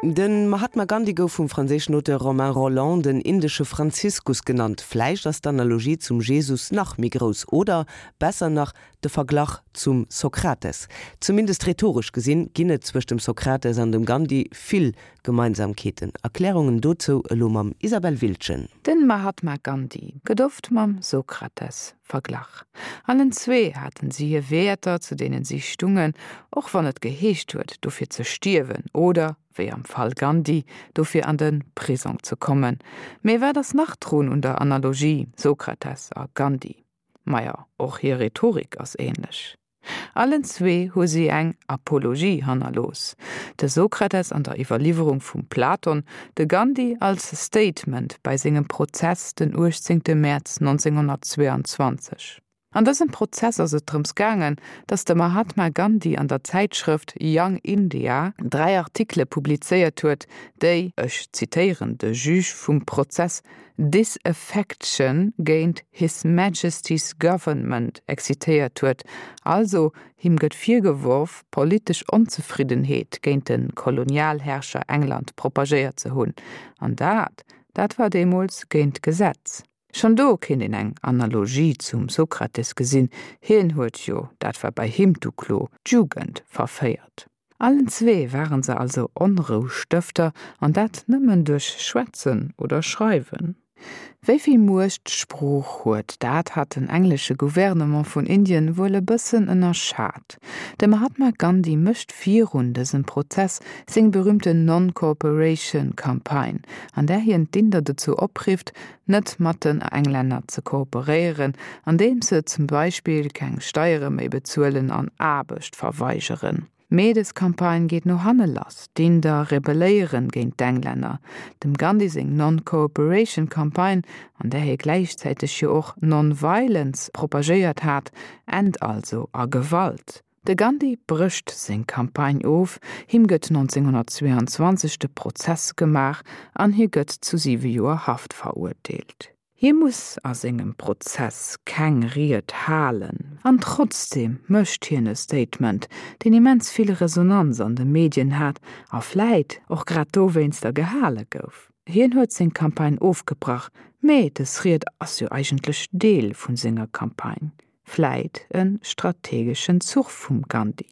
De Mahatma Gandhi gouf vum franséischen Auteur Romain Rolland den indesche Franziskus genannt. Vläicht ass d'Analogie zum Jesus nach méi grouss, oder besser nach, de Verglach zum Sokrates. Zumindest rhetoresch gesinn, ginn et zwëscht dem Sokrates an dem Gandhi vill Gemeinsamkeeten. Erklärungen dozou elo mam Isabelle Wildgen. Den Mahatma Gandhi gëtt oft mam Sokrates verglach. Allen zwee haten si hir Wäerter, zu deenen si stungen, och wann et geheescht huet, dofir ze stierwen oder, wéi am Fall Gandhi, dofir an de Prisong ze kommen. Mee wat ass nach drun un der Analogie Sokrates a Gandhi? Maja, och hir Rhetorik ass ähnlech. Allen zwee hu si eng Apologie hannerlooss, de Sokrates an der Iwwerliwwerung vum Platon, de Gandhi als Statement bei sengem Prozess den 18 Mäerz 1922. An dësem Prozess ass et drëms gaangen, datt de Mahatma Gandhi an der Zäitschrëft Young India 3 Artikele publizéiert huet, déi, ech zitéieren de Juge vum Prozess, Disaffection géint His Majesty's Government excitéiert huet, also him gëtt virgeworf, politesch Onzefriddenheet géint de Kolonialherrscher England propagéiert ze hunn. An dat, dat war deemools géint d'Gesetz. Schonn do kéint een eng Analogie zum Sokrates gesinn, hien huet jo, dat war bei him d'Uklo, d'Jugend verféiert. Allen zwee waren se also Onroustëfter, an dat nëmmen duerch Schwätzen oder Schreiwen. Wéi vill Muecht d'Sprooch huet, dat hat den englesche Gouvernement vun Indien wuel e bëssen ënnerschat. De Mahatma Gandhi mécht virun dësem Prozess seng berühmten Non-Cooperation Campaign, an där hien d'Inder dozou oprifft, net mat den Englänner ze kooperéieren, andeems se zum Beispill keng Steiere méi bezuelen an Aarbecht verweigeren. Mee des Campagne geet no hanne lass, d'Inder rebelléieren géint d'Englänner. Dem Gandhi seng Non-Cooperation Campagne, an där hie gläichzäiteg jo och Non-Violence propagéiert hat, ennt also a Gewalt. De Gandhi brécht seng Campagne of, him gëtt 1922 de Prozess gemaach an hie gëtt zu siwe Joer Haft verurteelt. Hie muss a sengem Prozess keng Ried halen, an trotzdeem mécht hien e Statement, deen immens vill Resonanz an de Medien hat a vläit och grad dowéinster gehale gouf. Hien huet seng Campagne ofgebrach, mee dës Ried ass jo eigentlech Deel vu senger Campagne. Vläit e strategeschen Zuch vum Gandhi.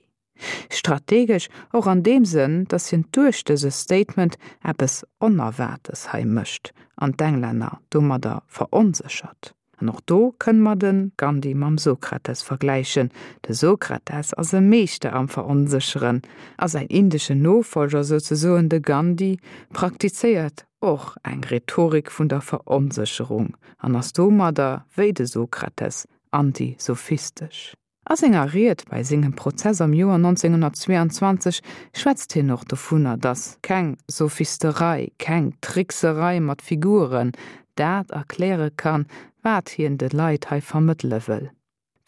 Strategesch och an deem Sënn, datt hien duerch dëse Statement eppes Onerwaartes hei mécht an d'Englänner domadder veronséchert. An och do kënne mer de Gandhi mam Sokrates vergläichen. De Sokrates ass e Meeschter am Veronsécheren a säin indeschen Nofollger souzesoen, de Gandhi, praktizéiert och eng Rhetorik vun der Veronsécherung an ass domadder, wéi de Sokrates, antisophistesch. A senger Ried bei sengem Prozess am Joer 1922 schwätzt hien och dovunner, datt keng Sophisterei, keng Trickserei mat Figuren dat erkläre kann, wat hien de Leit hei vermëttele wëll.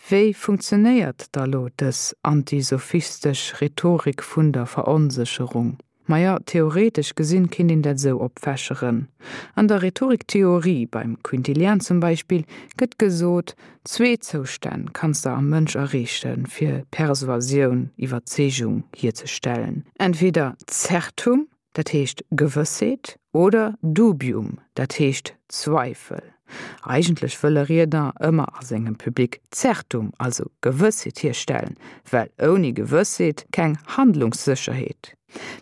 Wéi funktionéiert da lo dës antisophistesch Rhetorik vun der Veronsécherung? Maja, theoretesch gesinn kinnt een dat esou opfächeren. An der Rhetoriktheorie, beim Quintilian zum Beispill, gëtt gesot, zwee Zoustänn kanns de am Mënsch erreechen, fir Persuasioun, Iwwerzeegung, hierzestellen, entweder Zertum, dat heescht Gewëssheet, oder Dubium, dat heescht Zweifel. Eigentlech wëll e Riedner ëmmer a sengem Public Zertum, also Gewëssheet hierstellen, well ouni Gewëssheet keng Handlungssécherheet.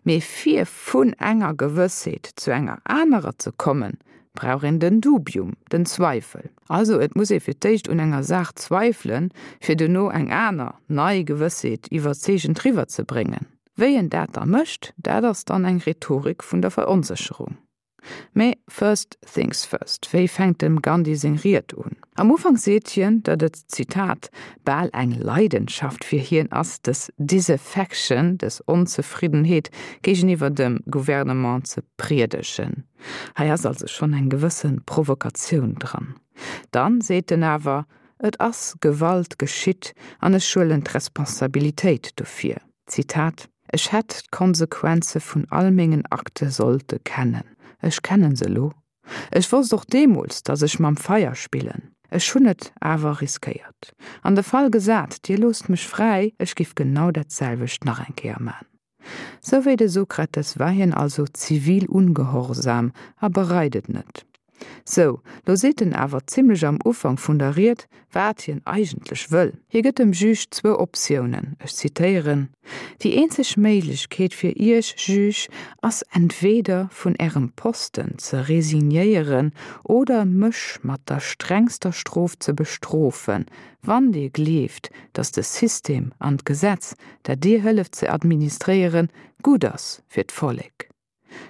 Mee fir vun enger Gewëssheet zu enger anerer ze kommen, brauch een den Dubium, den Zweifel. Also et muss ee fir d'éischt un enger Saach zweifelen, fir duerno eng aner, nei Gewëssheet iwwerzeegend riwwerzebréngen. Wéi en dat da mécht, dat ass dann eng Rhetorik vun der Veronsécherung. Mee first things first, wéi fänkt dem Gandhi seng Ried un? Am Ufank seet hien, datt et, Zitat, bal eng Leidenschaft fir hien ass, dës Disaffection, dës Onzefriddenheet géigeniwwer dem Gouvernement ze priedegen. Hei ass also schonn eng gewësse Provokatioun dran. Dann seet en awer, Et ass Gewalt geschitt an ech huelen d'Responsabilitéit dofir. Zitat, Ech hätt d'Konsequenze vun all mengen Akte sollte kennen. Ech kennen se elo. Ech wosst och deemools, datt ech mam Feier spillen. Ech hunn et awer riskéiert. An de Fall gesat, Dir loosst mech fräi, ech giff genau dat selwecht nach eng Kéier man. Sou wéi de Sokrates war hien also zivil ungehorsam a bereit et net. Sou, lo seet en awer zimlech am Ufank vun der Ried, wat hien eigentlech wëll. Hie gëtt dem Juge zwou Optiounen, ech zitéieren, Déi eenzeg Méiglechkeet fir Iech, Juge, ass entweeder vun Ärem Posten ze resignéieren oder mech mat der strengster Strof ze bestrofen, wann Dir gleeft, datt de System an d'Gesetz, dat Dir hëlleft ze administréieren, gutt ass fir d'Vollek.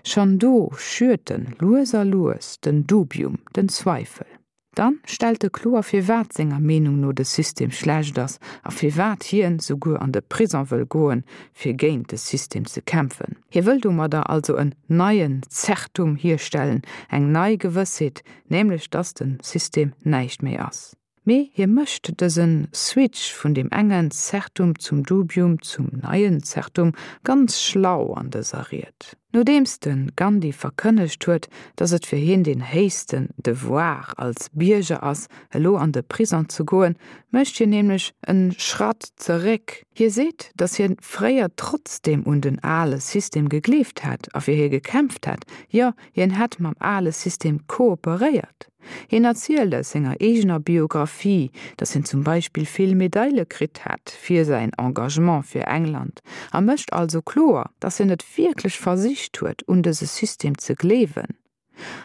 Schonn do schürt en lues a lues den Dubium, den Zweifel. Dann stellt e kloer firwat senger Meenung no de System schlecht ass a firwat hien souguer an de Prison wëll goen fir géint de System ze kämpfen. Hie wëll domadder also en neien Zertum hierstellen, eng nei Gewëssheet, nämlech dass den System näischt méi ass. Mee hie mécht dëse Switch vun deem engen Zertum zum Dubium zum neien Zertum ganz schlau an dëser Ried. Nodeems de Gandhi verkënnegt huet, datt et fir hien deen héichsten Devoir als Bierger ass, elo an de Prison ze goen, mécht hien nämlech en Schratt zeréck. Hie seet, datt hien fréier trotzdeem un den ale System gegleeft hätt a fir hie gekämpft hätt, jo, hien hätt mam ale System kooperéiert. Hien erzielt aus senger eegener Biographie, datt hien zum Beispill vill Medaile kritt hätt fir säin Engagement fir England a mécht also kloer, datt hien et wierklech versicht huet, un dëse System ze gleewen.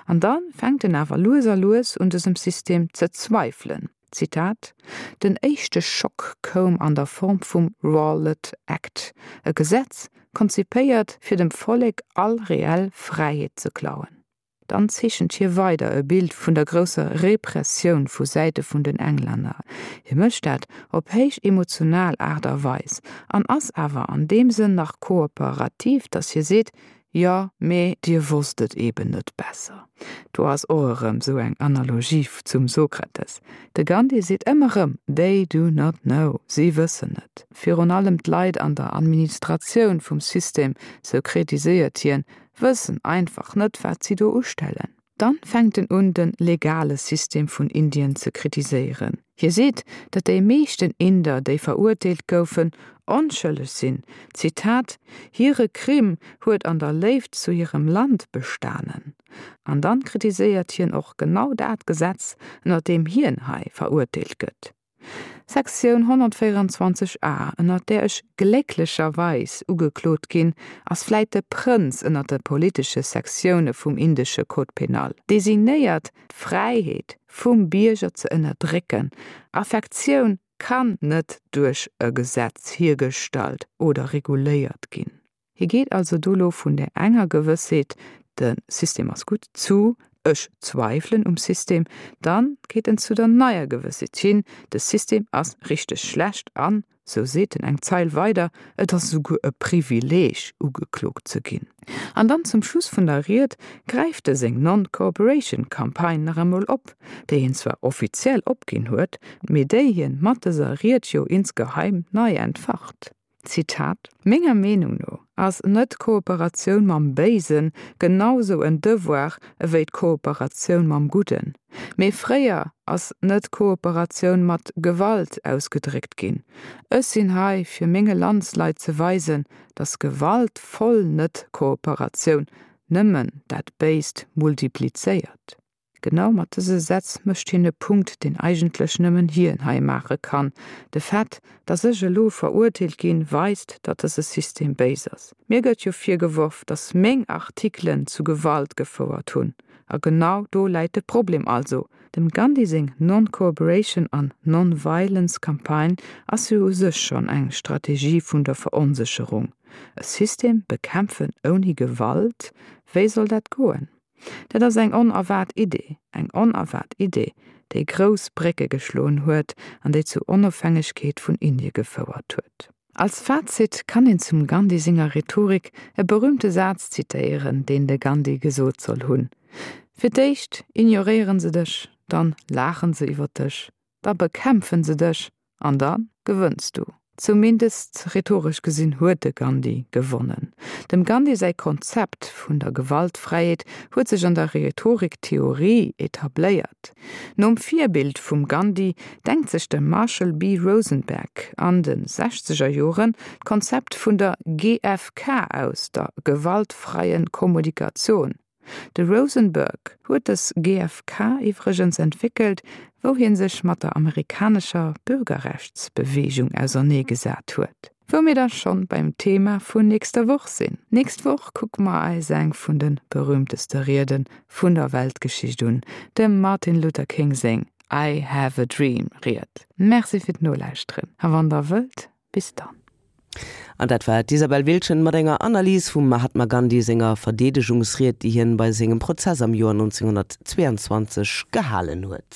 An da fänkt en awer lues a lues un dësem System ze zweifelen. Zitat, Den éischte Schock koum an der Form vum Rowlatt Act, e Gesetz, konzipéiert fir dem Vollek all reell Fräiheet ze klauen. Dann zeechent hie weider e Bild vun der grousser Repressioun vu Säite vun den Englänner. Hie mécht dat op héich emotional Aart a Weis an ass awer an deem Sënn nach kooperativ, datt hie seet, Jo, mee dir wosst et eben net besser. Do ass och erëm esou eng Analogie zum Sokrates. De Gandhi seet ëmmer erëm, They do not know, si wëssen net. Virun allem d'Leit an der Administratioun vum System, sou kritiséiert hien, wëssen einfach net wat si do ustellen. Dann fänkt en un den legale System vun Indien ze kritiséieren. Hie seet, datt déi meeschten Inder déi verurteelt goufen, onschëlleg sinn, Zitat, Hire Crime huet an der Léift zu hirem Land bestanen. An dann kritiséiert hien och genau dat Gesetz, ënner deem hien hei verurteelt gëtt. Sektioun 124 a, ënnert där ech glécklecherweis ugeklot ginn, ass vläit de Prënz ënnert de politesche Sektioune vum indesche Code pénal, designéiert d'Fräiheet vum Bierger ze ënnerdrécken. Affektioun kann net duerch e Gesetz hiergestallt oder reguléiert ginn. Hie geet also do lo vun där enger Gewëssheet, de System ass gutt, zu ech zweifelen um System. Dann geet en zu der neier Gewëssheet hin, de System ass richteg schlecht an, sou seet en eng Zeil weider, et ass esouguer e Privileeg ugeklot ze ginn. An dann zum Schluss vun der Ried gräift e seng Non-Cooperation Campagne nach emol op, déi hien zwar offiziell opginn huet, mee déi hien mat dëser Ried jo insgeheim nei entfacht. Zitat, Menger Meenung no ass Net-Kooperatioun mam Béisen genau sou en Devoir ewéi d'Kooperatioun mam Gudden. Mee fréier ass Net-Kooperatioun mat Gewalt ausgedréckt ginn. Ech sinn hei fir menge Landsleit ze weisen, datt gewaltvoll Net-Kooperatioun nëmmen dat Béist multiplizéiert. Genau mat dëse Sätz mécht hien e Punkt, deen eigentlech nëmmen hien hei maache kann, De Fait, datt ech elo verurteelt ginn, weist, datt dëse System béis ass. Mir gëtt jo virgeworf, datt meng Artikelen zu Gewalt gefouert hunn. A genau do läit de Problem also. Dem Gandhi seng Non-Cooperation an Non-Violence Campagne ass jo u sech schonn eng Strategie vun der Veronsécherung. E System bekämpfen ouni Gewalt, wéi soll dat goen? Dat ass eng onerwaart Idee, eng onerwaart Idee, déi grouss Brécke geschloen huet an déi zur Onofhängegkeet vun Indie gefouert huet. Als Fazit kann een zum Gandhi senger Rhetorik e berühmte Saz zitéieren, deen de Gandhi gesot soll hunn, Fir d'éischt ignoréieren se dech, dann laachen se iwwer dech, da bekämpfen se dech an da gewënns du. Zumindest rhetoresch gesinn huet de Gandhi gewonnen. Dem Gandhi säi Konzept vun der Gewaltfräiheet huet sech an der Rhetoriktheorie etabléiert. Nom Virbild vum Gandhi denkt sech de Marshall B. Rosenberg an de sechzeger Joren d'Konzept vun der GFK aus, der gewaltfreien Kommunikation. De Rosenberg huet dës GFK iwwregens entwéckelt, wou hie sech mat der amerikanescher Bürgerrechtsbeweegung auserneegesat huet. Wou mir da schonn beim Thema vun nächster Woch sinn. Nächst Woch kucke mer eis eng vun de berühmteste Riede vun der Weltgeschicht un, dem Martin Luther King seng I have a dream Ried. Merci fir d'Nolauschteren a wann der wëllt, bis dann. An dat war d'Isabelle Wiltgen mat enger Analys vum Mahatma Gandhi senger Verdeedegungsried, déi hien bei sengem Prozess am Joer 1922 gehalen huet.